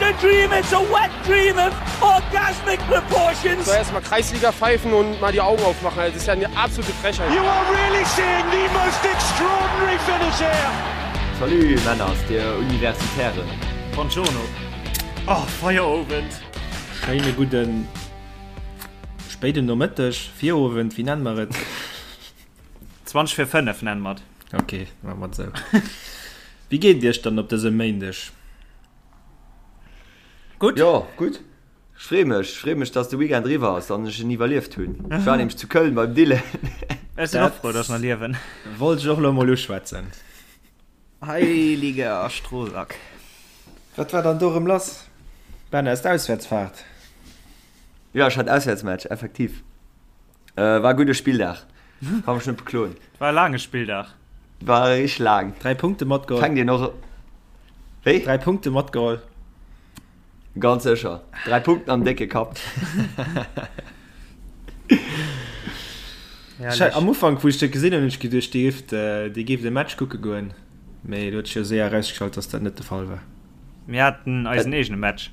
a dream, it's a wet dream of orgasmic proportions. So erstmal Kreisliga pfeifen und mal die Augen aufmachen. Das ist ja eine absolute Frechheit. You are really seeing the most extraordinary finish here. Salut Männer aus der Universitären. Buongiorno. Oh, Feierowend. Schéine gudden spéiden Nomëtteg, Virowend, wéi nennen mer et? 20 vir 5 nennen mer et. Ok, maache mer et esou. Wéi geet et iech dann op dësem Méindeg? Gutt. Jo, gutt. Ech free mech, ech free mech, dass de Weekend eriwwer ass an ech en iwwerlieft hunn. Ech war nämlech zu Köln beim Dylan. Ech sinn och frou, dass ech nach liewen. Wollt ech och elo mol uschwätzen. Heiliger Strohsack. Wat war dann do erëm lass? Ben, aus der Auswäertsfahrt? Jo, ech hat Auswäertsmatch, effektiv. War e gudde Spilldag, ka mech net bekloen. War e laange Spilldag. War richteg laang. 3 Punkte matgeholl. Fänkt een och. Wéi? 3 Punkte matgeholl. Ganz sécher. 3 Punkten am décke Kapp. Herrlech. Am Ufank, wou ech dat gesinn hunn, hunn ech geduecht, Dir géift, Dir géift e Match kucke goen. Mee et huet sech jo séier erausgestallt, dass dat net de Fall war. Mir haten eisen eegene Match.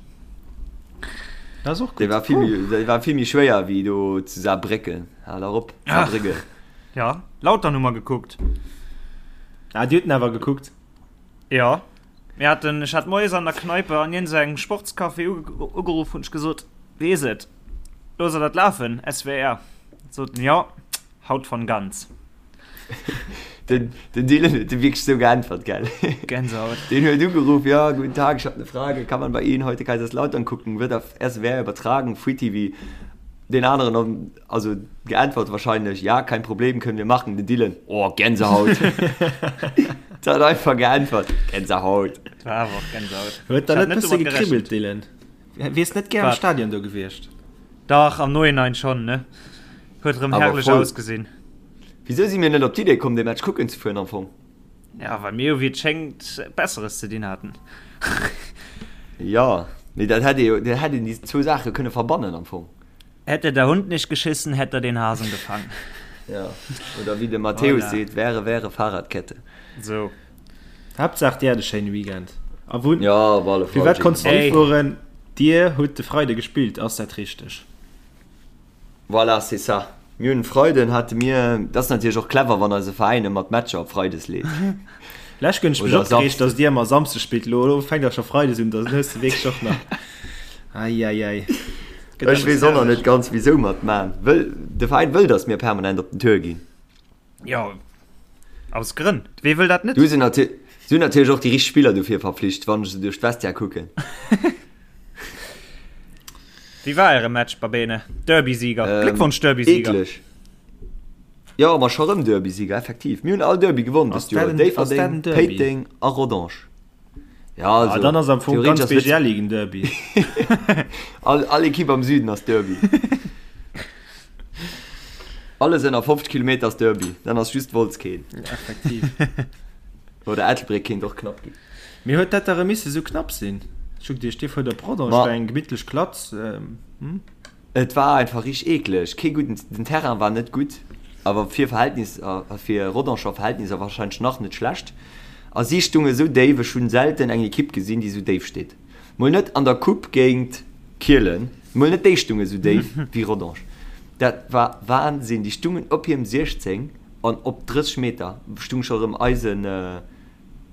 Dat ass och gutt. Dee war vill méi, dee war vill méi schwéier wéi do zu Saarbrécken. Hal erop, Saarbrücken. Ja, Lautern hu mer gekuckt. Ah, Dir hutt en awer gekuckt? Jo. Mir haten, ech hat moies an der Kneipe an iergendengem Sportscafé ugeruff, hunn ech gesot, Wéi is et? Loosst der dat lafen, SWR? Sot en, Jo, haut von ganz. Den, den Dylan huet wierklech sou geäntwert, gell? Gänsehaut. Den huet ugeruff, ja, guten Tag, ich hab ne Frage, kann man bei Ihnen heute Kaiserslautern gucken, wird auf SWR übertragen, Free TV? Den aneren, also geäntwert wahrscheinlech, ja, kein Problem, können wir machen. Den Dylan, oh, Gänsehaut. Der hat einfach geäntwert, Gänsehaut. War awer och Gänsehaut. Huet der net bësse gekribbelt, Dylan? Wiers net gär am Stadion do gewiescht? Dach, am Nohinein schon, ne? Huet erëm herrlech ausgesinn. Wisou si mir net op d'Idee komm, dee Match kucken ze fueren am Fong? Ja, well mir jo wéi et schéngt Besseres ze dinn haten. Jo, mee dat hätt ee jo, dat hätt een déi zwou Saache kënne verbannen am Fong. Hätte der Hund nicht geschissen, hätt er den Hasen gefangen. Ja, oder wéi de Matthäus seet, Wäre, wäre Fahrradkette. Sou. Haaptsaach dir hat e schéine Weekend. A wou, Ja, op alle Fall. firwat konns du net fueren? Dir hutt de Freide gespillt, ass dat richteg? Voilà, c'est ça. Mir hunn Freiden hate mir, dat ass natierlech och clever, wann eise Veräin ëmmer d'Matcher op Freides leet. Lech hunn ech mech opgereegt, datt dir ëmmer Samsdes spillt. Elo elo fänkt der scho Freides un, dann hues de wierklech och nach. Ei, ei, ei. Ech weess och nach net ganz, wisou mer et maachen. Wëll, de Veräin wëll, datt mir permanent op den Tour ginn. Jo, aus Grënn. Wee wëll dat net? Du sinn natierlech och déi richteg Spiller dofir verpflicht, wann ech se duerch d'Vestiaire kucken. Wéi war äre Match, Babene? Derby-Sieger. Ähm, Gléckwonsch, Derby-Sieger. Eekleg. Jo, ma scho rëm Derby-Sieger, effektiv. Mir hunn all Derby gewonnen dëst Joer. Déifferdeng, Péiteng a Rodange. Ja, also, ah, dann ass am Fong ganz BGL en Derby. all, all Ekipp am Süden ass Derby. Alles ënner 50 Kilometer ass Derby. Dann ass just Wolz keen. Ja, effektiv. Oder Ettelbréck kéint och knapp ginn. Mee huet dat da rëm misse sou knapp sinn? Ech hu geduecht, dir fuert op Rodange, war eng gemittlech Klatz. Hm? Et war einfach richteg eekleg, kee gudden, den Terrain war net gutt, awer fir Verhältnisser, fir Rodanger Verhältnisser warscheinlech nach net schlecht. A si stunge sou déif, ech hunn selten eng Ekipp gesinn, déi sou déif steet. Mol net an der Coupe géint Kielen, mol net déi stunge sou déif wéi Rodange. Dat war Wahnsinn, déi stungen op hirem 16 an op 30 Meter stung scho rëm eisen,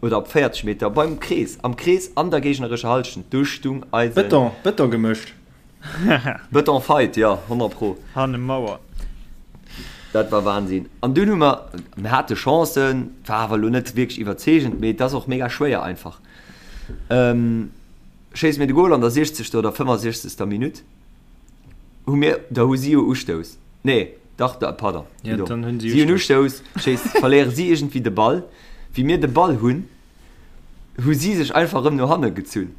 oder op 40 Meter beim Krees, am Krees an der géignerescher Hallschent, do stung eisen. Bëton, Bëton gemëscht. Bëton Fight, jo, 100 pro. Hanne Mauer. Dat war Wahnsinn. An dunn hu mer, mir hate Chancen, war awer elo net wierklech iwwerzeegend, mee et ass och mega schwéier einfach. Schéisse mir de Gol an der 60. oder 65. Minutt, hu mir, da hu si jo Ustouss, nee, dach, da, pardon, Ja, dann hunn si hunn Ustouss, schéiss, verléiere si iergendwéi de Ball. Wéi mir de Ball hunn, hu si sech einfach erëm no hanne gezunn.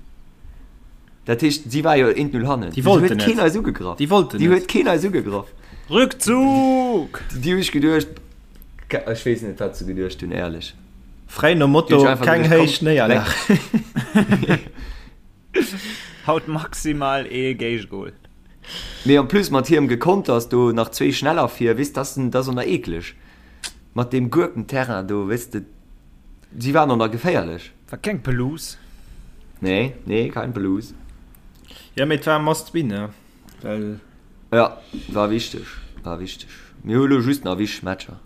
Dat heescht, si war jo 1-0 hannen. Déi wollten net. Keen eis ugegraff. Déi wollten net. Déi huet keen eis ugegraff. Rückzug! Déi hu ech geduecht, ech weess net, wat se geduecht hunn, éierlech. Fräi nom Motto, keng héich Néierlag. Haut maximal ee Géigegol. Mee en plus mat hierem Gekonters do nach zwee schneller vir, weess, dat ass och nach eekleg. Mat deem Gurkenterrain do, weess de, si waren och nach geféierlech. War keng Pelouse. Nee, nee, kein Pelouse. Jo, mee et war e must win, ne? Well. Jo, war wichteg, war wichteg. Mir hu lo just nach wichteg Matcher.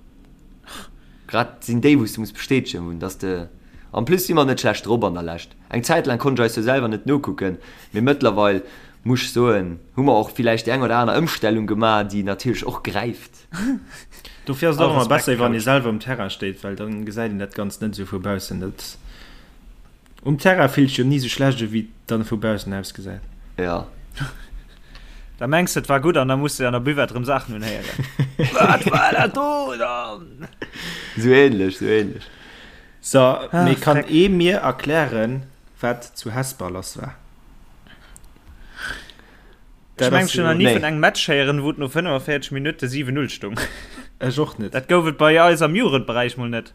Grad sinn déi, wou s de muss bestätegen hunn, dass de. En plus si mer net schlecht drop an der Lescht. Eng Zäit laang konnt ech eis jo selwer net nokucken, mee mëttlerweil muss ech soen, hu mer och villäicht déi eng oder aner Ëmstellung gemaach, déi natierlech och gräift. Dofir ass et och ëmmer besser, wann ee selwer um Terrain steet, well dann gesäit een dat Ganzt net esou vu baussen. Dat um Terrain fillt sech jo ni esou schlecht u wéi et dann vu baussen ausgesäit. Jo. Da mengs de et war gutt an da muss de an der Buvette rëm Saachen unhéieren. Wat war dat do dann? Sou ähnlech, sou ähnlech. So, mee kann ee mir erklären, wat zu Hesper lass war? Ech mengen, ech hunn nach ni vun engem Match héieren, wou et no 45 Minutte 7, 0 stung. Ech och net. Dat gouf et bei eis am Jugendberäich mol net.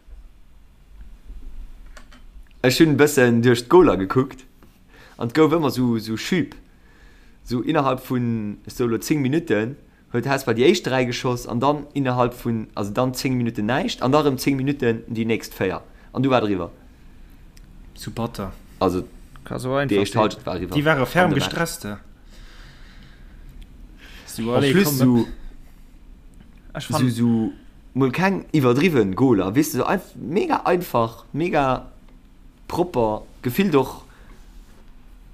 Ech hunn e bëssen duerch d'Goler gekuckt an et gouf ëmmer sou Schüb, sou innerhalb vun, ech soe lo 10 Minutten huet Hesper déi éischt 3 geschoss an dann innerhalb vun, also dann 10 Minutten näischt an da rëm 10 Minutten déi nächst 4 an du war et eriwwer. Zu batter. Also Ka sou einfach déi éischt sinn. Halschent war eriwwer Déi ware an ferm de Match. gestresst. Sou, En allez, plus komm, sou, Ech sou, fannen. sou mol keng iwwerdriwwen Goler, weess de, sou einf mega einfach, mega propper, gefillt och,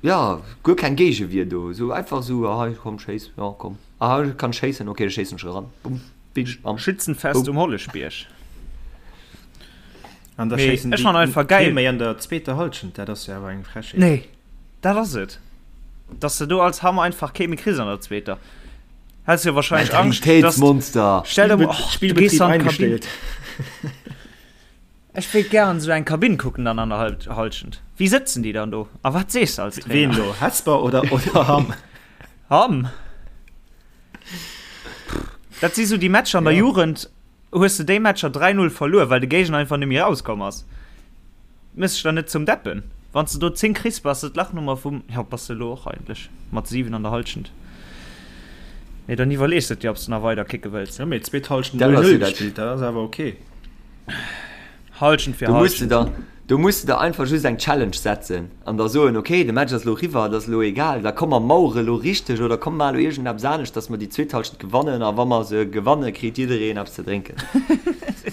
jo, guer keng Géigewier do, sou einfach sou, ah hei komm schéiss, jo komm. Aha, ech kann schéissen, ok, da schéissen ech eran. Bumm, bitsch, bam. Schützenfest Boum. um Holleschbierg. An da Mee schéissen ech déi fannen einfach geil. kee méi an der zweeter Halschent, dat ass jo awer eng Frechheet. Nee, dat ass et. Dass de do als Hamm einfach kee méi kriss an der zweeter. Häss jo wahrscheinlech Angscht, dass. Mentalitéitsmonster! Stell der mol, och, du gees Spillbetrieb an d'Kabinn. eingestellt. Ech wéilt gären esou eng Kabinn kucken dann an der Halschent. Wéi sëtzen déi dann do? A wat sees de als Ween Trainer? do? Hesper oder, oder Hamm? Hamm. Dat si sou déi Matcher an der Ja. Jugend, hues de déi Matcher 3-0 verluer, well de Géigner einfach net méi rauskomm ass. Méchs dech dann net zum Deppen. Wann s de do 10 kriss, bass de d'Lachnummer vum, jo, bass de elo och eigentlech mat 7 an der Halschent. Mee dann iwwerlees de et dir, ob s de nach weider kicke wëlls. Jo, mee zweet Halschent Dat ass 0-0 jo dat. gespillt, dat ass awer ok. Halschent fir Do muss de Halschent. der, do muss de der einfach just eng Challenge setzen an da soen, ok, de Match ass elo eriwwer, et ass elo egal, da komm mer mauere elo richteg oder komm mar elo iergendeppes anescht, dass mer déi zweet Halschent gewannen a wa mer se gewanne kritt jiddereen eppes ze drénken.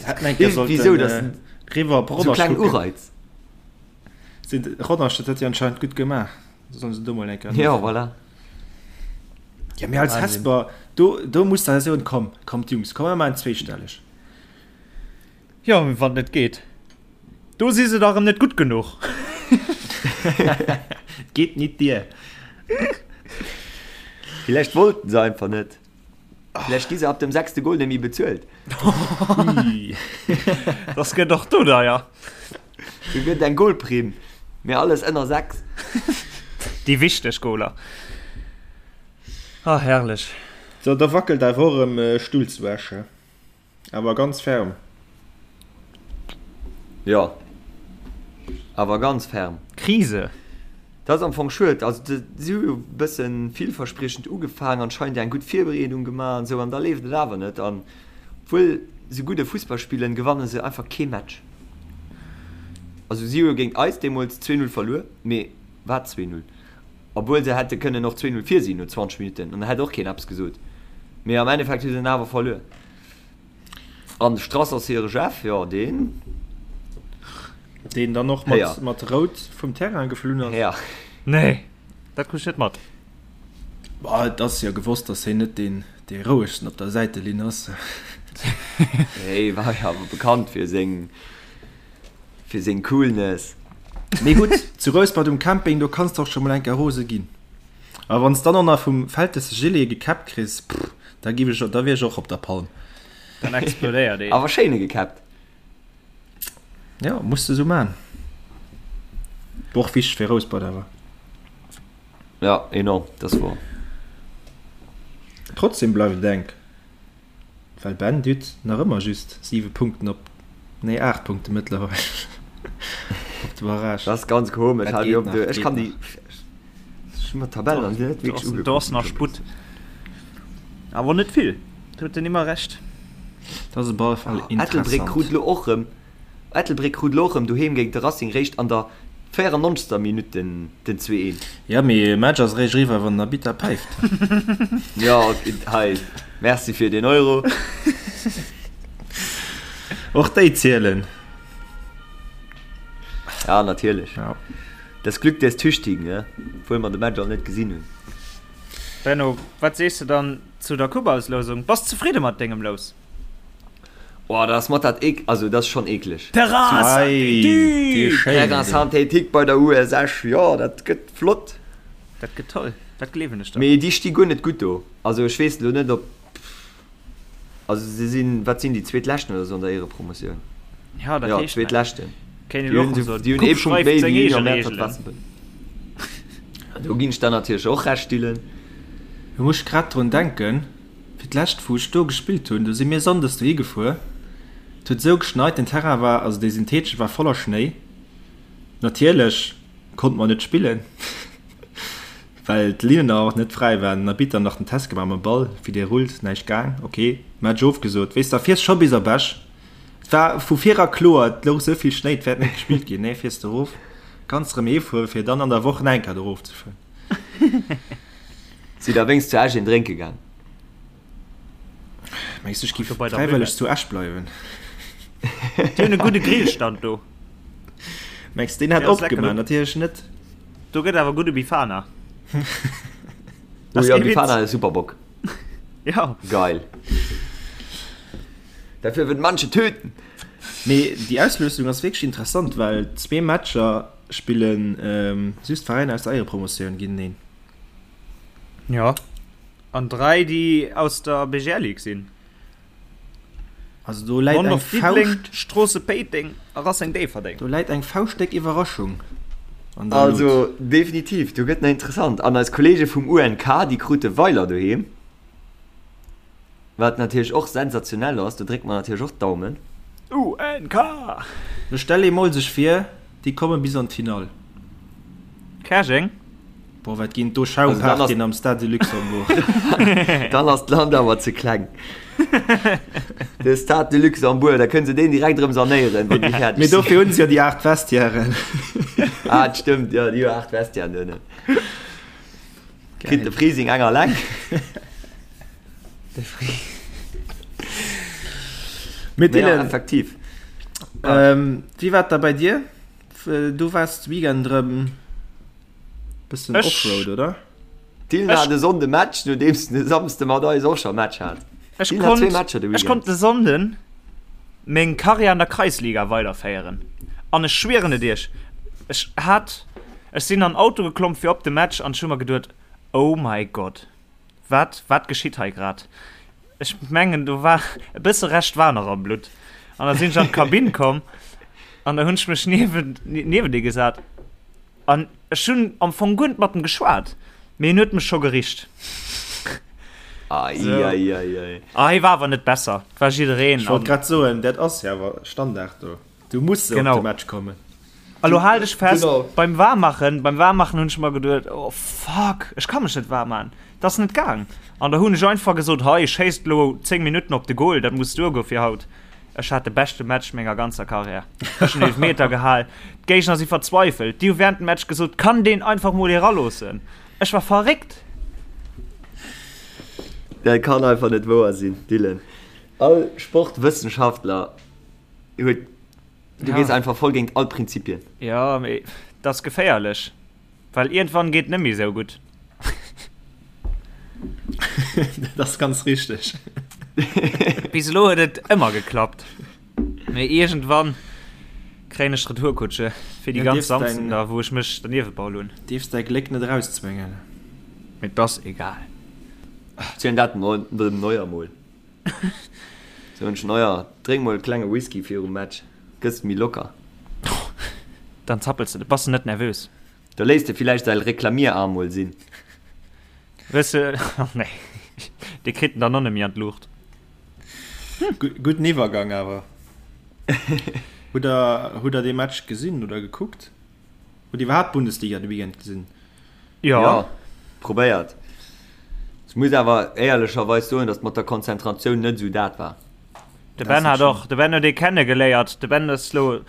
Hätten eng Kéier Iergendwéi sou, sollten dass riwwer op sou Rodange kleng kucken. Ureiz. Sinn Rodange, dat huet jo anscheinend gutt gemaach. Da sollen se do mol eng Kéier Jo, nofroen. voilà. Ja, mee als Wahnsinn. Hesper, do, do muss der soen, komm, kommt Jungs, komm mer maachen zweestelleg. Jo, mee wann et net geet, do si se da rëm net gutt genuch. Et geet nit dier. Villäicht wollten se einfach net. Villäicht gi se ab dem sechste Goal net méi bezuelt. Ui. Das gëtt och do deier. Do gëtt eng Goalprimm, mee alles ënner 6. Déi wichteg Goaler. Ah, herrlech. So, da wackelt awer och erëm Stull zu Esch, he? Awer ganz ferm. Jo, awer ganz ferm. Krise. Dat ass am Fong schued. Also si hu jo e bësse villverspriechend ugefaang, anscheinend eng gutt Virbereedung gemaach an esou, an da leeft et awer net. An obwuel se gudde Fussball spillen, gewanne se einfach kee Match. Also si hu jo géint eis deemools 2, 0 verluer, mee wat 2, 0? Obwuel se hätte kënnen och 2, 0 vir sinn no 20 Minutten an da hätt och keen eppes gesot. Mee am Endeffekt hu se en awer verluer. An de Strass ass hire Jeff, jo deen. Deen dann och mat, mat Rout vum Terrain geflunn ass. Héier. Nee, dat krut ech net mat. Bah, et ass jo gewosst, datt hien net deen, dee rouegsten op der Säitelinn ass. Hie war jo awer bekannt fir seng. Fir seng Coolness. Mee gutt, zu Rouspert um Camping, do kanns de och scho mol eng Kéier rose ginn. A wann s dann och nach vum Vältesse Gilet gekäppt kriss, pff, da giff ech, da wier ech och op der Palm. Dann explodéiert een. Awer schéine gekäppt. Jo, muss de sou man. Och wichteg fir Rouspert awer. Ja, enorm, dat ass wouer. Trotzdem bleift et enk. Well Ben Dütt nach ëmmer just 7 Punkten op, nee 8 Punkte mëttlerweil op de Barrage. Dat ass ganz komesch. Dat geet nach, Ech geet kann déi nach. Ech hu mer d'Tabell nach net wierklech ugeguckt. Do ass nach Sputt. Awer net vill. Do huet den Immer Recht. Dat ass op alle Fall Ettelbréck interessant. krut lo och rëm Ettelbréck krut lo och rëm doheem géint de Racing réischt an der. 94. Minutt den 2, 1. Jo, mee e Match ass eréischt eriwwer, wann den Arbitter päift. Jo, hei, merci fir deen Euro. Och déi zielen. Ja, natierlech. Ja. Das Glück des Tüchtigen, ne? Obwuel mer de Match all net gesinn hunn. Benno, wat sees de dann zu der Coupe-Auslousung? Bass zefridde mat dengem Lous? Oh, dat ass mat dat eek, also dat ass schonn eekleg. Terrain synthétique! Terrain synthétique bei der US Esch, jo, dat gëtt flott. Dat gëtt toll, dat gleewen ech der. Mee déi sti guer net gutt do. Also ech weess elo net, ob, also se sinn, wat sinn déi, Zweetleschten oder sou an der Éierepromotioun? Ja, dat Jo, heescht näischt. Zweetleschten. Kéint een Déi elo hunn och soen, déi hunn ee d'Coupe Punkt schreift méi seng wéi eege Union Mäertert Reegelen. Waasserbëlleg. Do ginn ech der natierlech och Recht, Dylan. Do muss ech grad drun denken, fir d'lescht wou ech do gespillt hunn, do si mir sonndes dohi gefuer, et huet esou geschneit, den Terrain war, also dee syntheetesche war voller Schnéi, natierlech konnte mer net spillen, well d'Linnen och net fräi waren, den Arbitter nach den Test gemaach mam Ball, wéi dee rullt, näischt gaang, ok, Match ofgesot, weess da fiers scho bis op Esch, et war vu vir era kloer, et louch esou vill Schnéi, et wäert net gespillt ginn, nee fiers de erof, kanns erëm heefueren, fir dann an der Woch nach eng Kéier do erofzefueren. Sidd der wéinst zu Esch een drénke gaang? Mengs du ech giff fräiwëlleg zu Esch bleiwen? Déi hunn e gudde Grillstand do. Mengs deen hätt opgemaach? Natierlech net. Do gëtt awer gudde Bifana. Oh jo, Bifana ass super Bock. Ja. Geil. Dafür würden manche töten. Mee déi Auslösung ass wierklech interessant, well zwee Matcher spillen just Veräiner aus der Éierepromotioun géinteneen. Ja. An 3 déi aus der BGL Ligue sinn. Also do läit eng Fauscht. Stroosse Péiteng a Racing Déifferdeng. Do läit eng fauschtdéck Iwwerraschung an der Lut. Also definitiv, do gëtt nach interessant. An eis Kollege vum UNK, déi krute Weiler doheem, wat natierlech och sensationell ass. Do drécke mer natierlech och d'Daumen. UNK! Lo stell ee mol sech vir, déi komme bis an d'Finall. Käerjeng? Boah, wat ginn do Schaumpartyen am Stade de Luxembourg. Dann ass d'Land awer ze kleng. De Stade de Luxembourg, da kënne se deen direkt erëm sanéieren, wann déi fäerdeg sinn. Mee dofir hunn se jo déi 8 Vestiairen. Ah, dat stëmmt, jo, déi hu 8 Vestiairen donnen. Kritt de Frising eng alleng. De Fri. Mee Dylan, effektiv. Wéi war et da bei dir? Du waars de Weekend erëm Bëssen Offroad, oder? Dylan hat e Sonnde Match, nodeems en e Samsde mat eis och scho Match hat. Ech konnt, ech konnt de Sonnden meng Karriär an der Kreisliga weiderféieren. An ech schwieren et iech, ech hat, ech sinn an Auto geklomm fir op de Match an ech hu mer geduet, Oh my God, wat, wat geschitt hei grad? Ech mengen, do war e bësse Rescht war nach am Blutt. An da sinn ech an d'Kabinn komm an da hunn ech mech niewent, niewent e gesat. An ech hunn am Fong guer net mat em geschwat, mee en huet mech scho gericht. Ai, so. ai, ai, ai. Ah, hie war awer net besser, et war jiddereen. Ech wollt grad soen, dat ass jo awer Standard do. Du muss genau. op de Match kommen. A lo hal dech fest, genau. beim Waarmmachen, beim Waarmmachen hunn ech mer geduet, oh fuck, ech ka mech net waarm maachen. Dat ass net gaang. An da hunn ech einfach gesot, hei, schéisst lo 10 Minutten op de Goal, dat muss duergoe fir haut. Ech hat de beschte Match menger ganzer Karriär. Ech hunn Eelefmeter gehal. D'Géigner si verzweifelt. Déi hu wärend dem Match gesot, Kann deen einfach mol eraloossen? Ech war verréckt. Dat kann einfach net wouer sinn, Dylan. All Sportwëssenschaftler huet, du gees einfach voll géint all Prinzipien. Jo, mee dat ass geféierlech. Well iergendwann geet net méi sou gutt. Dat ass ganz richteg. Bis elo huet et ëmmer geklappt. Mee iergendwann kréien ech d'Retourkutsche fir déi ganz Samsden da wou ech mech derniewebaul hunn. Dierfs däi Gléck net erauszwéngen. Mee 't ass egal. Zielen dat dem Neuer mol. Soen ech, Neuer, drénk mol e klenge Whisky virum Match, gëss méi locker. Dann zappels de, bass de net nervös. Da léisst e villäicht säi Reklamierarm mol sinn. Wëss de, oh nee, dee kritt en dann och net méi an d'Luucht. Gudden Iwwergang awer. Hutt der, hutt der dee Match gesinn oder gekuckt? Hutt Dir iwwerhaapt d'Bundesliga de Weekend gesinn? Jo. Jo, probéiert. Ech muss awer éierlecherweis soen, datt mat der Konzentratioun net esou dat war. De Ben hat och, de Ben huet ee kenne geléiert. De Ben ass lo.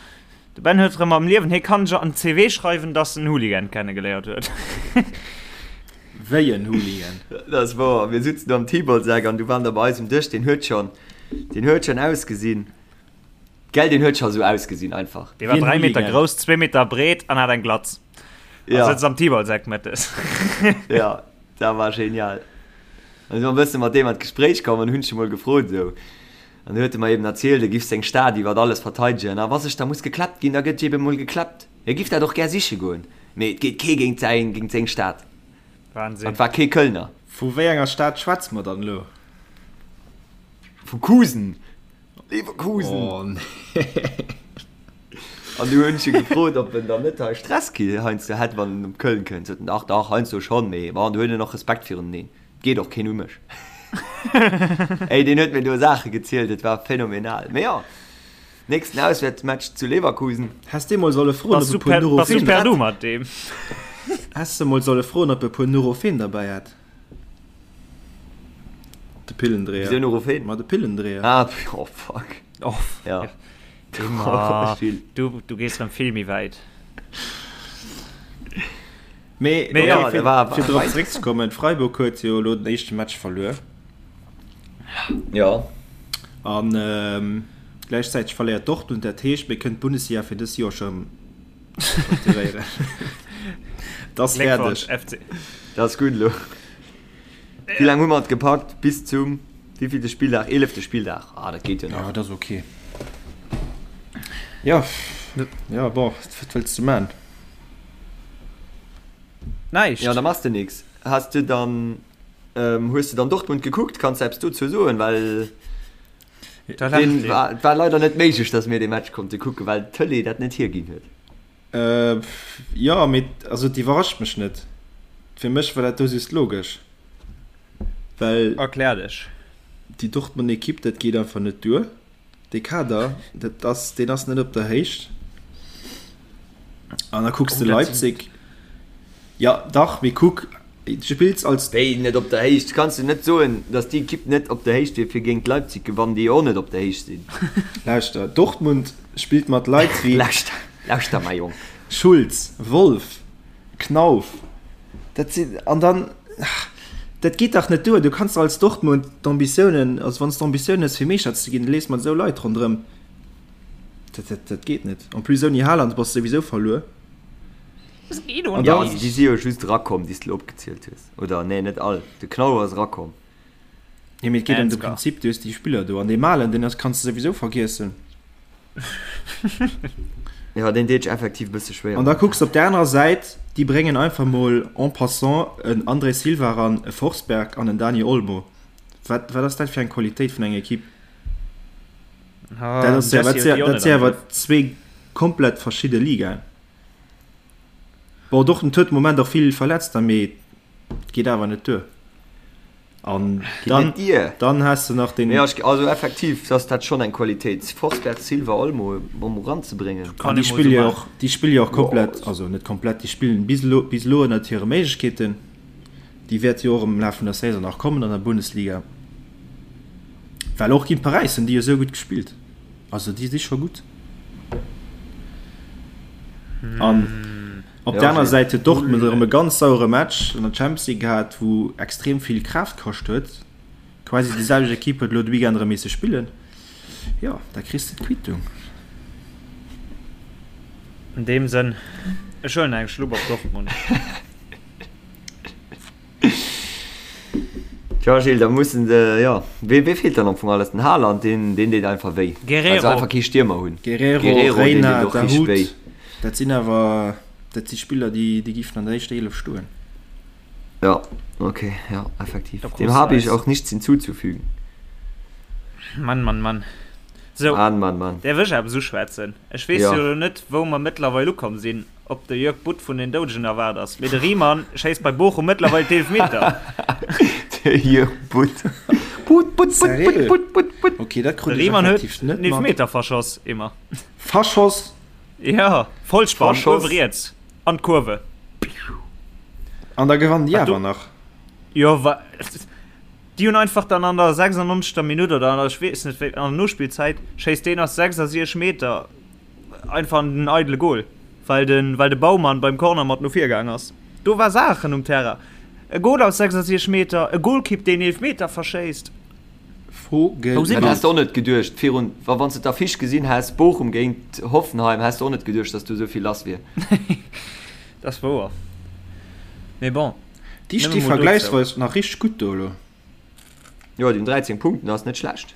De Ben huet erëm am Liewen, hie kann sech an d'CV schreiwen, dass en Hooligan kennegeléiert huet. Wéi en Hooligan? Dat ass wouer. Mir sutzen do am Tibolseck an du waren der bei eis um Dësch, deen huet schonn, deen huet schonn ausgesinn, gell, deen huet scho sou ausgesinn einfach. Dee war 3 Meter grouss, 2 Meter breet an hat eng Glatz. Ja. A sëtzt am Tibolseck mëttes. Ja, dat war genial. An si mer e bësse mat deem an d'Gespréich komm an hunn ech e mol gefrot esou, An du huet e mer eben erzielt, e giff seng Stad iwwert alles verteidegen, a wa sech da muss geklappt ginn, da gëtt eben mol geklappt. Hie giff dat och gär siche goen, mee et geet kee géint säin, géint seng Stad. Wahnsinn. An et war kee Kölner. Vu wéi enger Stad schwätze mer dann elo? Vu Kusen. Leverkusen. Oh nee. An du hunn ech e gefrot, ob en dann net hei Stress ki heiansdo hätt, wann en op Köln kënnt. Sot en, dach, dach, heiansdo schonn, mee bon, du huet en och Respekt viruneneen. Geet och keen u mech. Ey, deen huet mir do Saache gezielt, et war phänomenal. Mee jo, nächsten Auswäertsmatch zu Leverkusen. Häss de mol solle froen, Bass ob e du puer per, bass du Nurofen. per Du mat deem? Häss de mol solle froen, ob e puer Nurofen derbäi hätt. De Pillendréier. Wisou Nurofen? Ma de Pillendréier. Ah, oh fuck. Oh, Ja. Immer. Gilles. Du, du gees rëm vill méi wäit. Mee, Mee okay, ja, fir, war- fir drop war- zeréckzekommen, Freiburg huet jo elo den éischte Match verluer. Ja. An ähm, gläichzäiteg verléiert Dortmund, dat heescht, mir kënnen d'Bundesliga fir dës Joer scho facturéieren. Dat ass Gléckwonsch, fäerdeg. FC. Dat ass gutt elo. Wéi laang hu mer et gepackt? Bis zum wéivillte Spilldag? Eelefte Spilldag. Ah, dat geet jo nach. Ja, dat ass okay. Ja, ja, bon, wat wëlls du man? Näischt. Ja, da machs de nix. Has de dann, ähm, hues de dann Dortmund gekuckt? Kanns de eppes dozou soen? Well Da lacht deen een. war, et war leider net méiglech, dass mir dee Match konnte kucken, well d'Tëlee dat net hierginn huet. Äh, jo, mee also et iwwerrascht mech net. Fir mech war dat do just logesch, well Erklär dech. déi Dortmund Ekipp, dat geet einfach net duer. Dee Kader, dat ass, deen ass net op der Héicht. An da kucks de Oh, dat sinn. Leipzig. Ja, dach, mee kuck, du spills als. Wéi net op der Héicht? Kanns du net soen, datt déi Ekipp net op der Héicht wier fir géint Leipzig gewannen, déi jo och net op der Héicht sinn? Lauschter, Dortmund spillt mat Leit wéi. Lauschter, lauschter, mäi Jong. Schulz, Wolf, Knauf, dat sinn, an dann, dat geet dach net duer. Du kanns als Dortmund d'Ambitiounen, also wann s d'Ambitioun hues fir Meeschter ze ginn, da lees mat esou Leit ronderëm. Dat, dat, dat geet net. En plus ouni Haaland bass de souwisou verluer. An ja, also déi si jo just erakomm, déi s de elo opgezielt hues. Oder nee, net all. De Knauf ass erakomm. Nee, mee et geet ëm de Prinzip, du hues déi Spiller do an dee Malen, deen ass, kanns de souwisou vergiessen. Ja, deen deet sech effektiv e bësse schwéier. An da kucks de op där anerer Säit, déi bréngen einfach mol en passant en André Silva eran, e Forsberg an en Dani Olmo. Wat, wat ass dat fir eng Qualitéit vun enger Ekipp? Dat ass ja, wat, dat si awer zwee komplett verschidde Ligaen. Bon, Dortmund huet de Moment och vill Verletzter, mee et geet awer net duer. An dann, dann has de nach den. Ja, also effektiv ass dat schonn eng Qualitéit, Forsberg, Silva, Olmo mam eranzebréngen. An déi spille jo och, déi spille jo och komplett, also net komplett, déi spillen bis elo, bis elo ënnert hire Méiglechkeeten. Déi wäerte jo och am Laf vun der Saison nach kommen an der Bundesliga. Well och géint Paräis hunn déi jo esou gutt gespillt. Also déi si scho gutt. An op der aner Säit huet Dortmund erëm e ganz sauere Match an der Champions League gehat, wou extrem vill Kraaft kascht huet. Quasi déi selwecht Ekipp huet elo de Weekend erëm misse spillen. Jo, da kriss de d'Quittung. An deem Sënn, ech huelen eng Schlupp op Dortmund. Tja Gilles, da mussen se, jo, wee, wee feelt dann am Fong alles? Den Haaland, deen, deen deet einfach wéi. Guerrero. Well se einfach kee Stiermer hunn. Guerrero, Guerrero, deen Reyna, deet och richteg Dahoud, wéi. dat sinn awer, dat si Spiller, déi, déi giffen an der éischter 11 stoen. Ja, okay, ja, effektiv. Da Dem krus habe de ich eis. auch nichts hinzuzufügen. Mann, Mann, Mann. Sou, Mann, Mann, Mann. däerf ech eppes uschwätzen? Ech weess Ja. jo elo net, wou mer mëttlerweil ukomm sinn. Ob de Jörg Butt vun den Doudegen erwaart ass, mee de Riemann schéisst bei Bochum mëttlerweil d'Eelfmeter. De Jörg Butt. Butt, Butt, Butt, Butt, Butt, Butt, Butt. Okay, dat krut De ech Riemann huet effektiv net den Eelfmeter mat. verschoss, immer. Verschoss? Ja, Vollspann, Verschoss. uewe riets an d'Kurve. An da gewannen déi Wat du- awer nach. Jo, wa déi hunn einfach dann an der 96. Minutt oder an der, ech weess net wéi, an der Nospillzäit schéisst deen aus 66 Meter. einfach an den eidele Goal, well de, well de Baumann beim Corner mat no vir gaang ass. Do war Saachen um Terrain. E Goal aus 66 Meter, e Golkipp, deen Eelefmeter verschéisst. Wou si mer? Dat häss de och net geduecht virun, wa wann s de d'Affiche gesinn häss, Bochum géint Hoffenheim, häss de och net geduecht, datt do esou vill lass wier. Dat ass wouer. Mee bon. Déi sti vergläichsweis nach richteg gutt do elo. Jo, déi hunn 13 Punkten, ass net schlecht.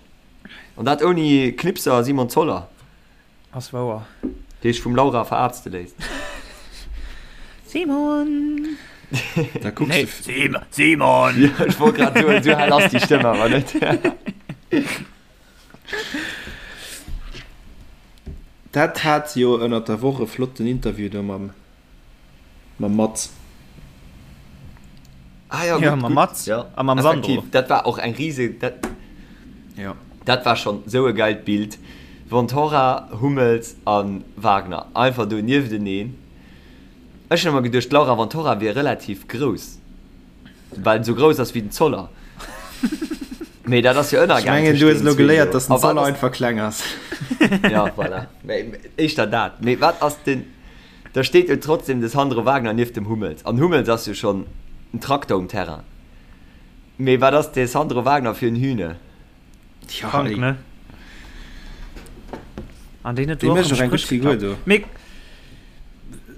An dat ouni Knipser Simon Zoller. Ass wouer. Dee sech vum Laura verarzte léisst. Simon! Da kucks de. Simon! Simon! Jo, ech wollt grad soen, esou hell ass déi Stëmm awer net. Dat hat jo ënnert der Woch e flotten Interview do mam Mam Mats. Ah ja, ja mam Mats ja. a mam Sandro. Dat war och eng riese dat, ja. dat war schon sou e geilt Bild. Ventura, Hummels an Wagner einfach do niefteneen. Ech hunn ëmmer geduecht d'Laura Ventura wier relativ grouss, well en sou grouss ass wéi den Zoller. Mee dat ass jo ënnergaang. Ech mengen du hues elo geléiert, dass den Zoller einfach kleng ass. Ja voilà, mee éischter dat. Mee wat ass den. Da steet jo trotzdem de Sandro Wagner nieft dem Hummels. An Hummels ass jo schonn en Trakter um Terrain. Mee wat ass de Sandro Wagner fir en Hühne? Tja, Krank, ne? An deen huet Dee do och mécht am och eng gutt Spréch Figur geklappt. do. Mee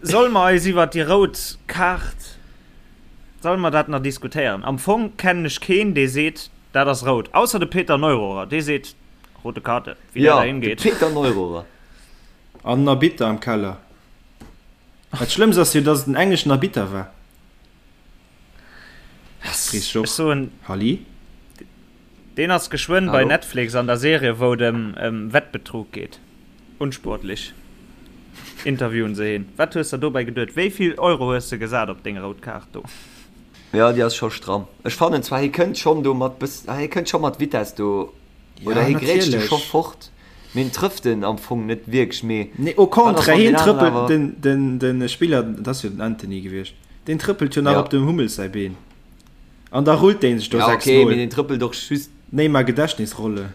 solle mer eis iwwert déi rout Kaart, solle mer dat nach diskutéieren? Am Fong kennen ech keen, dee seet, dat ass rout. Ausser de Peter Neururer, dee seet, rote Karte, wéi dat Jo, dahin de geet. Peter Neururer. An en Arbitter am Keller. Dat Schlëmmst ass jo, dass et en engleschen Arbitter war. Chris Ech Joch, soen, Halli? deen ass geschwënn bei Hallo? Netflix an der Serie, wou et ëm ëm Wettbetrug geet. Unsportlich. Interviewen se heen. Wat hues der dobäi geduet? Wéi vill Euro hues de gesat op deng rout Kaart do? Jo, déi ass scho stramm. Ech fannen zwar, hie kënnt schonn do mat bëss, hie kënnt scho mat Vitess do Oder Ja, hie grätscht e scho natierlech. fort, mee en trëfft en am Fong net wierklech. Mee Nee, au wat ass, contraire, wann hien deen aneren trëppelt awer. den, den, den Spiller, dat ass jo den Antony gewiescht, deen trëppelt jo nach Ja. op dem Hummels säi Been. An da rullt dee sech do Ja, 6 okay, mee Mol. deen trëppelt och just. Neymar Gedächtnisrolle.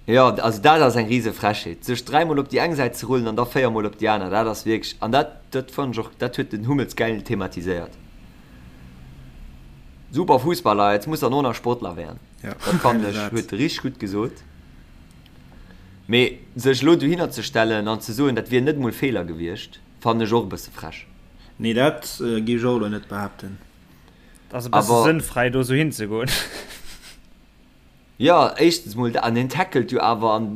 Jo, also dat ass eng rise Frechheet, sech dräimol op déi eng Säit ze rullen an da véiermol op déi aner, dat ass wierklech, an dat, dat fannen ech och, dat huet den Hummels gäil thematiséiert. Super Fußballer, jetzt muss er nur nach Sportler werden. Ja, Dat fannen ech, huet e richteg gutt gesot. Mee sech elo dohinner ze stellen an ze soen, dat wier net emol Feeler gewiescht, fannen ech och e bësse frech. Nee, dat géif ech och elo net behaapten. Dat ass e bësse Awer. sënnfräi, do esou hinzegoen. Jo, éischtens mol dat, an hien tackelt jo awer an,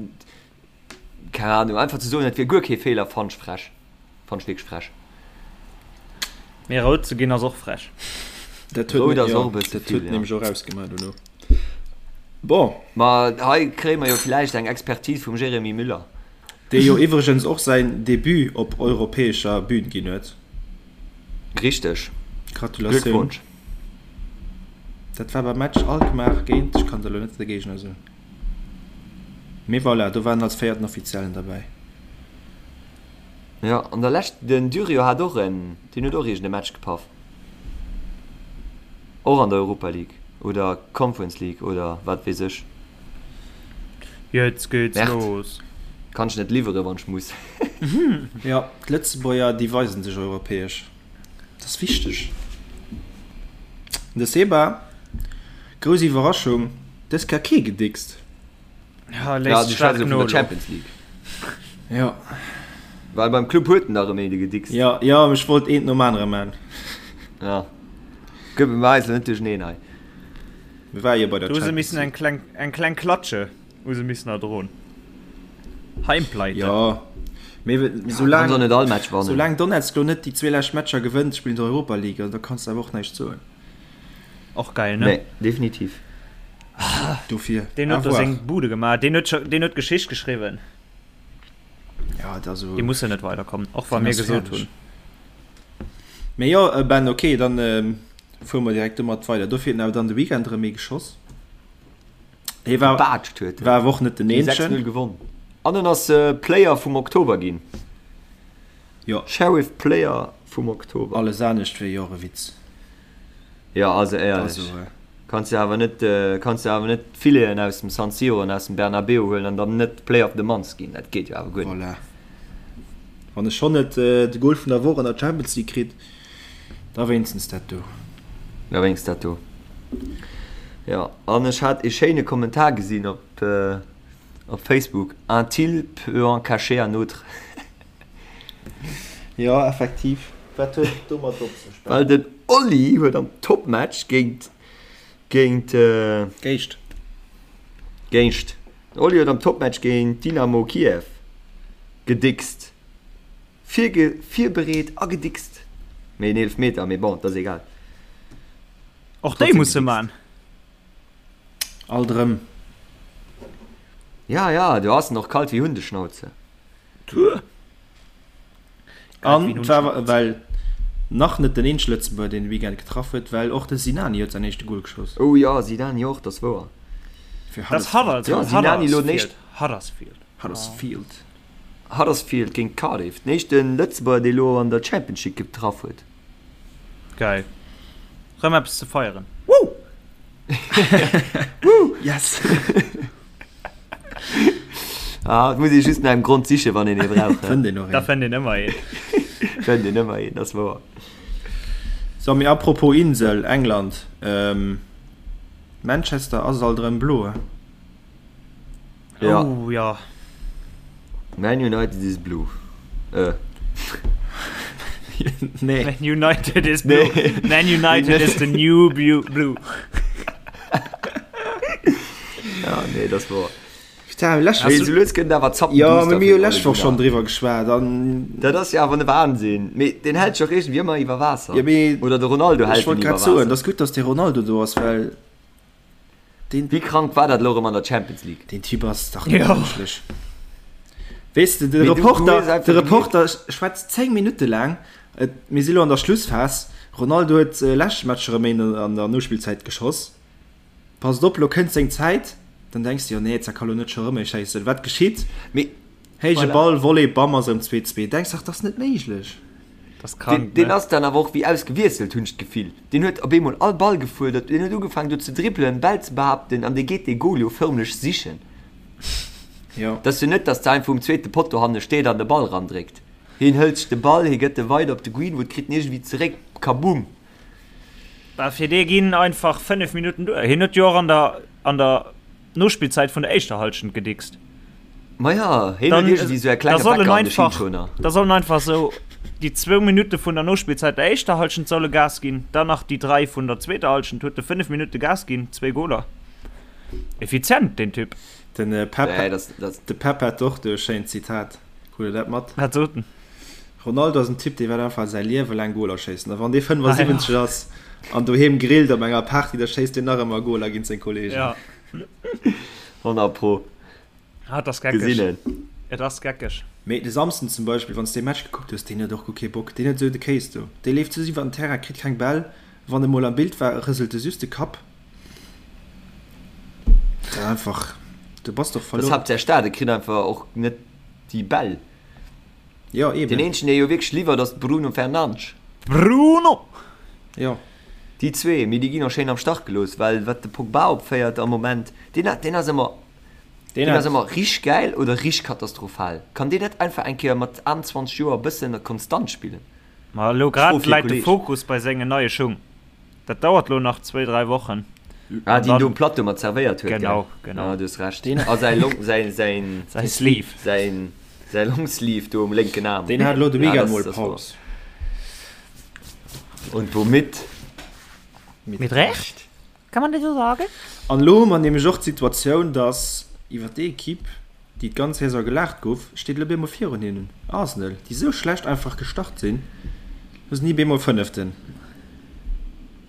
keng Ahnung, einfach ze soen, et wier guer kee Feeler, fannt ech frech. Fannt ech wierklech frech. Mee rout ze ginn ass och frech. Dat huet, Rout ass jo, och e bësse dat vill, huet ja. nämlech och ausgemaach dono. Bon. Ma hei kréie mer jo villäicht eng Expertise vum Jérémy Müller. Dee jo iwwregens och säin Debut op europäescher Bühn ginn huet. Richteg. Gratulatioun. Glückwunsch. Dat war beim Match Alkmaar géint, ech kann der elo net de Géigner soen, mee voilà, do war en als véierten Offiziellen derbäi. Jo, an der Lescht, den Durio hat och en, deen huet och iergend e Match gepaff. Och an der Europa League oder Conference League oder wat weess ech. Jetzt geht's Merde. los. Kann ech net liwweren, wann ech muss. Jo, d'Lëtzebuerger, déi weisen sech europäesch. Dat ass wichteg. De Seba, grouss Iwwerraschung, dës Kéier kee gedickst. Ja, Ja, léisst du staark schwätz jo vun no der elo. Champions League. Jo. Well beim Club huet en der erëm een gedickst. Jo, jo, ech wollt eent nom anere man. Ja. Gëtt mer eis elo net duercheneen hei. Mir ware jo bei der Do hu se Champions missen eng League. kleng, eng kleng Klatsche hu se missen erdroen. Heimpleite. Jo, mee Kann soulaang, se och net all Match wannen. soulaang Donetsk lo net déi zwee lescht Matcher gewënnt, spillen se Europa League, also da kanns de awer och näischt soen. Och geil, ne? Nee, definitiv. Dofir, Deen à huet do voir. seng Bude gemaach. Deen huet scho, deen huet Geschicht geschriwwen. Ja, et ass Déi mussen net weiderkommen, och wa deen mir ass gesot fäerdeg. hunn. Mee jo, Ben, ok, dann fuere mer direkt domat weider. Dofir huet en awer dann de Weekend erëm ee geschoss. Hie war, Gebaatscht huet en. war awer och net den Déi Eenzegen. 6-0 gewonn. An en ass Player vum Oktober ginn. Jo. Sheriff Player vum Oktober. Alles anescht wier jo och e Witz. Jo, also éierlech. Also. Kanns de awer net, kanns de awer net d'Fileten aus dem San Siro an aus dem Bernabeu huelen an dann net Player of the Month ginn. Dat geet jo awer guer net. Voilà. Wann e schonn net de Goal vun der Woch an der Champions League kritt, da wéinstens dat do. Da wéinstens dat do. Jo, an ech hat ee schéine Kommentar gesinn op op Facebook, Un til peut en cacher un autre. Jo, effektiv. Wat huet et domat op sech? Well den Oli huet am Topmatch géint géint. Géischt. Géischt. Den Oli huet am Topmatch géint Dynamo Kiew gedickst. Virge virbereet a gedickst. Mee en Eelefmeter, mee bon, dat ass egal. Och déi muss e man. Alt erëm. Ja, ja, do ass en och kalt wéi Hundeschnauze. An et war well nach net den eenzege Lëtzebuerger, deen de Weekend getraff huet, well och de Sinani huet säin éischte Gol geschoss. Oh jo, Sinani och, dat ass wouer. Fir Dat ass Huddersfield. Ja, Sinani elo den éischten. Huddersfield. Huddersfield. Huddersfield géint Cardiff, den éischte Lëtzebuerger, dee elo an der Championship getraff huet. Geil. Rëm eppes ze feieren. Woo! Woo! Yes! Ah, et muss ee just no engem Grond sichen, wann een ee brauch. Fënnt een och Da een. fënnt een ëmmer een. Fënnt een ëmmer een, dat ass wouer. So, mee apropos Insel, England, Manchester ass alt erëm blo, he? Ja. Oh ja. Man United is blue. Äh. Nee. Man United is blue. Nee. Man United is the new blue. Ja, nee, das war. Putain, lech Mee sou lues gëtt et awer zappen Ja, duster mee mir hu fir lech Ole Woch schonn Gunnar. driwwer geschwat an. Dat ass jo awer ne Wahnsinn. Mee deen hält sech och iergendwéi ëmmer iwwer Waasser. Ja, mee Oder de Ronaldo ech hält en wollt iwwer grad soen, Waasser. et ass gutt, datt de Ronaldo do ass, well Deen, Wéi krank war dat elo erëm an der Champions League? deen Typ ass dach net Jo. mënschlech. Weess de, de Mee du, du hues Reporter, einfach de gemierkt. Reporter schwätzt 10 Minutte laang, et, mir si lo an der Schlussphas, Ronaldo huet leschte Match erëm een an der Nospillzäit geschoss, passt op, lo kënnt seng Zäit, dann denks de, jo nee, da ka lo net scho rëm ee schéissen. Wat geschitt? Mee Héije voilà. Ball, Volley, bam, ass erëm 2, 2. Denks dach, dat ass net méiglech. Das Deen, krank, deen ne? ass dann awer och wéi ausgewiesselt, hunn ech d'Gefill. Deen huet op eemol all Ball gefuerdert, deen huet ugefaangen do ze dribbelen, Bäll ze behaapten an dee geet dee Goal jo förmlech sichen. Jo. Et ass jo net, datt de einfach um zweete Potto hanne steet an de Ball randréckt. Hien hëlt sech de Ball, hie gëtt e weider op de Greenwood, kritt en iergendwéi zeréck, kabumm! Bah, fir dee ginn einfach 5 Minutten duer. Hien huet jo och an der, an der Nospillzäit vun der éischter Halschent gedickst. Maja, hien huet iergendwéi sou e Da klenge soll en Wecker an de einfach, Schinschoner. da soll en einfach sou déi zwou Minutte vun der Nospillzäit der éischter Halschent solle Gas ginn, dann nach déi 3 vun der zweeter Halschent, huet e 5 Minutte Gas ginn, zwéi Goler. Effizient, deen Typ. Den Pep, Nee, das, das. de Pep hat och do e schéint Zitat. Krut der dat mat? Wat sot en? Ronaldo ass en Typ, dee wäert einfach säi Liewe laang Goler schéissen. A wann dee Ah, ja. 75 ass an doheem grillt op enger Party, da schéisst deen nach ëmmer Goler géint seng Kolleegen. Ja. 100 pro. Ah, et ass geckeg. Gesinn en. Et ass geckeg. Mee de Samsden zum Beispill, wann s de dee Match gekuckt hues, deen huet och guer kee Bock. Deen huet esou de Kéis do. Dee leeft just iwwer den Terrain, kritt keng Bäll. Wann e mol am Bild war, rëselt e just de Kapp. Dat ass einfach, du bass doch Dat ass verluer. haaptsächlech dat, e kritt einfach och net déi Bäll. Jo, Deen eben. eenzegen, dee jo wierklech liwwert, ass de Bruno Fernandes. Bruno! Jo. Déi zwee, mee déi ginn och schéin am Stach gelooss, well wat de Pogba opféiert am Moment, deen, deen ass ëmmer, Deen deen ass hat. ëmmer richteg gäil oder richteg katastrophal. Kann deen net einfach eng Kéier mat 21 Joer e bëssen konstant spillen? Ma elo Fro grad fir läit de Kolleg. Fokus bei sengen neie Schung. Dat dauert lo nach zwéi, dräi Wochen. Ah, An deen do dann, um Plateau mat zerwéiert huet, gell? genau, genau. Ah, du hues Recht. Deen, A säi Long, säi, säin, Säi Sleeve. säin, säi Longsleeve do um lénken Aarm. deen hat elo de Ja, Weekend das, mol das war. Paus. Und womit? Mit Mit Recht? Kann man das so sagen? An elo hu mer nämlech och d'Situatioun, dass iwwer déi Equipe, déi d'ganz Saison gelaacht gouf, steet elo bemol virun hinnen Arsenal, déi esou schlecht einfach gestart sinn. Elo sinn déi bemol Fënneften.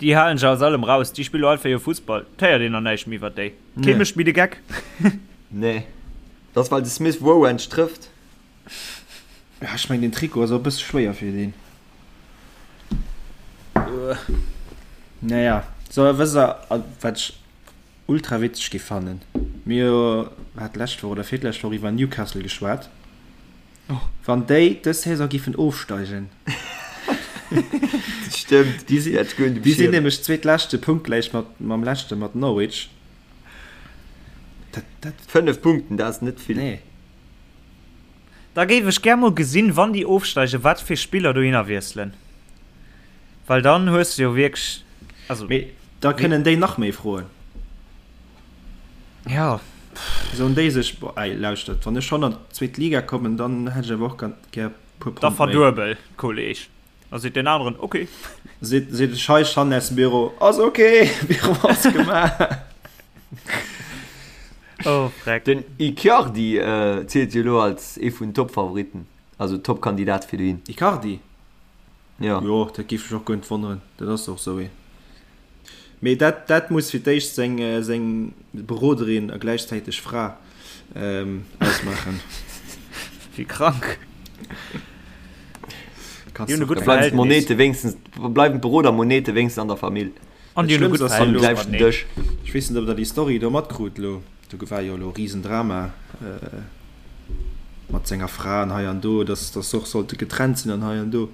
Déi halen sech aus allem raus, déi spille einfach hir Fussball. Et héiert een nach näischt méi iwwer déi. Kee Nee. mécht méi de Geck. Nee. Dat ass well de Smith Rowe endlech trëfft. Ja, ech mengen den Trikot ass och e bësse schwéier fir deen. Naja, so wësst der wat ech ultra witzeg gi fannen? Mir hu hat d'lescht Woch oder virlescht Woch iwwer Newcastle geschwat. Wann déi dës Saison giffen ofsteigen. Stëmmt, Déi si, dat goung dem déi sinn Schirm. nämlech zweetleschte punktgläich mat mam leschte mat Norwich. Dat, dat, 5 Punkten, dat ass net vill. nee. Da géif ech gär mol gesinn, wann déi ofsteigen, wat fir Spiller dohinner wiesselen. Well dann hues de jo wierklech, also. Mee da kënnen déi nach méi froen. Ja. Soen déi sech, boah, ey, lauschtert, wann ech schonn an d'zweet Liga kommen, dann hätt ech awer och ganz gär puer Pond méi. Da verduebel, Kolleg. Da seet deen aneren, ok. Seet de Scheich hannen aus dem Büro, ass ok, Büro ass gemaach. Oh, freck. Den Icardi zielt jo elo als ee vun den Top-Favoritten, also Top-Kandidat fir dohin. Icardi? Jo. Jo, dat géif mech och guer net wonneren, dat ass och esou ee. Mee dat, dat muss fir d'éischt seng, seng Beroderin a gläichzäiteg Fra ausmaachen. Wéi krank. Kanns Déi hunn e du gutt Da bleiwen Verhältnis. d'Monete wéinstens, bleiwen d'Beroder-Monete wéinstens an der Famill. An déi hunn e gutt Schlëmmst ass Am jo Verhältnis elo, gläichten mateneen. Dësch. ech weess net, ob der déi Story do matkrut elo, do war jo elo e Risendrama mat senger Fra an hei an do, dass, dass se och sollte getrennt sinn an hei an do.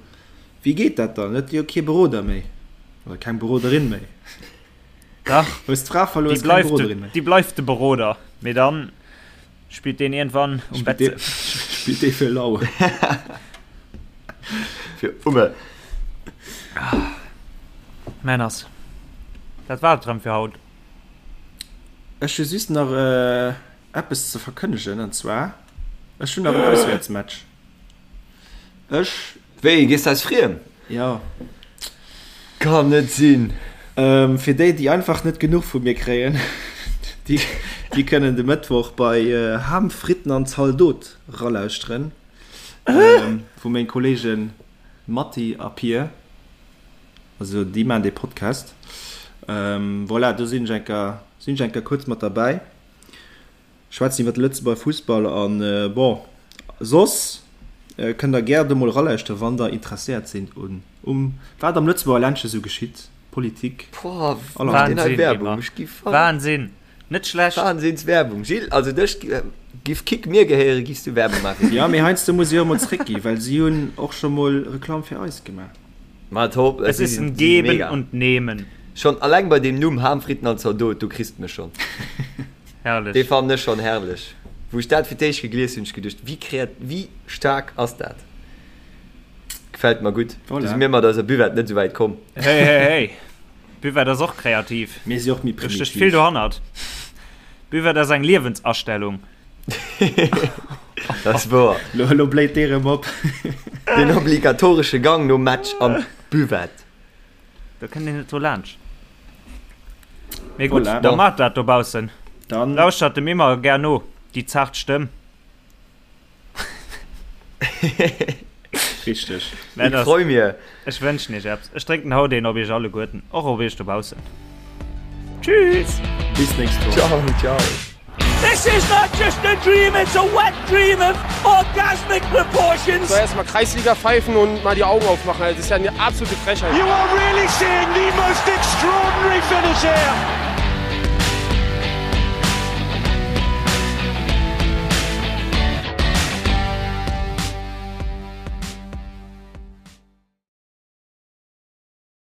Wéi geet dat dann? Huet jo kee Beroder méi oder keng Beroderin méi. Dach, Hues d'Fra verluer, déi hues keng bleift de, Beroderin méi. déi bleift de Beroder, mee dann spillt deen iergendwann um Spillt Bett. dee, spillt dee fir lau. Fir Umme. Männers, dat war et rëm fir haut. Ech hu just nach eppes ze verkënnegen, an zwar, ech hunn nach en Auswäertsmatch. Ech. Wéi, gees de eis friem? Jo. Kann net sinn. Fir déi, déi einfach net genuch vu mir kréien, déi, déi kënnen de Mëttwoch bei Ham, Fritten an Zaldot ralauschteren, wou meng Kolleegen Matti a Pir, also déi maachen dee Podcast. Voilà, do sinn ech eng Kéier, sinn ech eng Kéier kuerz mat derbäi. Schwätzen iwwer de Lëtzebuerger Fussball an bon soss kënnt der gär do mol eralauschteren wann der interesséiert sinn un um wat am Lëtzebuerger Ländche sou geschitt, Politik, Boah, allerhand. deen hei Wahnsinn, Werbung, Emma. ech gi verréckt. Wahnsinn! Net schlecht. Wahnsinns Werbung, Gilles, also dech giff Kick mir gehéieren, giffs du Werbung maachen fir Jo, mee Kick. heiansdo muss ech och mol zréckgi well si hunn och scho mol Reklamm fir eis gemaach. Ma top, Es si ist sinn ein si si Geben mega. und Nehmen. Schonn alleng bei deem Numm Ham, Fritten an Zaldot, do kriss de mech schonn. Herrlech. Dee fannen ech schonn herrlech. Wou ech dat fir d'éischt gegelies hunn, hunn ech geduecht, wéi kreat, wéi staark ass dat? Gefält mer gutt. Do si Voilà. mir mat eiser Buvette net esou wäit komm. Hey, hey, hey. Buvette ass och kreativ. Mir si och méi Do stécht vill primitiv. dohannert. Buvette ass eng Liewensastellung. Dat ass wouer. Lo, lo bléit dee rëm op. Den obligatoresche Gang nom Match an d'Buvette. Do kënnt een net dru laanscht. Mee gutt, Voilà. da Bon. maacht dat dobaussen. Dann. Lauschtert dem Emma gär no, déi zart Stëmm. Richteg. Ich Männers, freu mir. ech wënschen iech eppes. Ech drénken haut een op iech alleguerten, och op iech dobaussen. Tschüss! Bis nächst Woch. Ciao, ciao. This is not just a dream, it's a wet dream of orgasmic proportions. So erstmal Kreisliga pfeifen und mal die Augen aufmachen. Das ist ja eine absolute Frechheit. You are really seeing the most extraordinary finish here.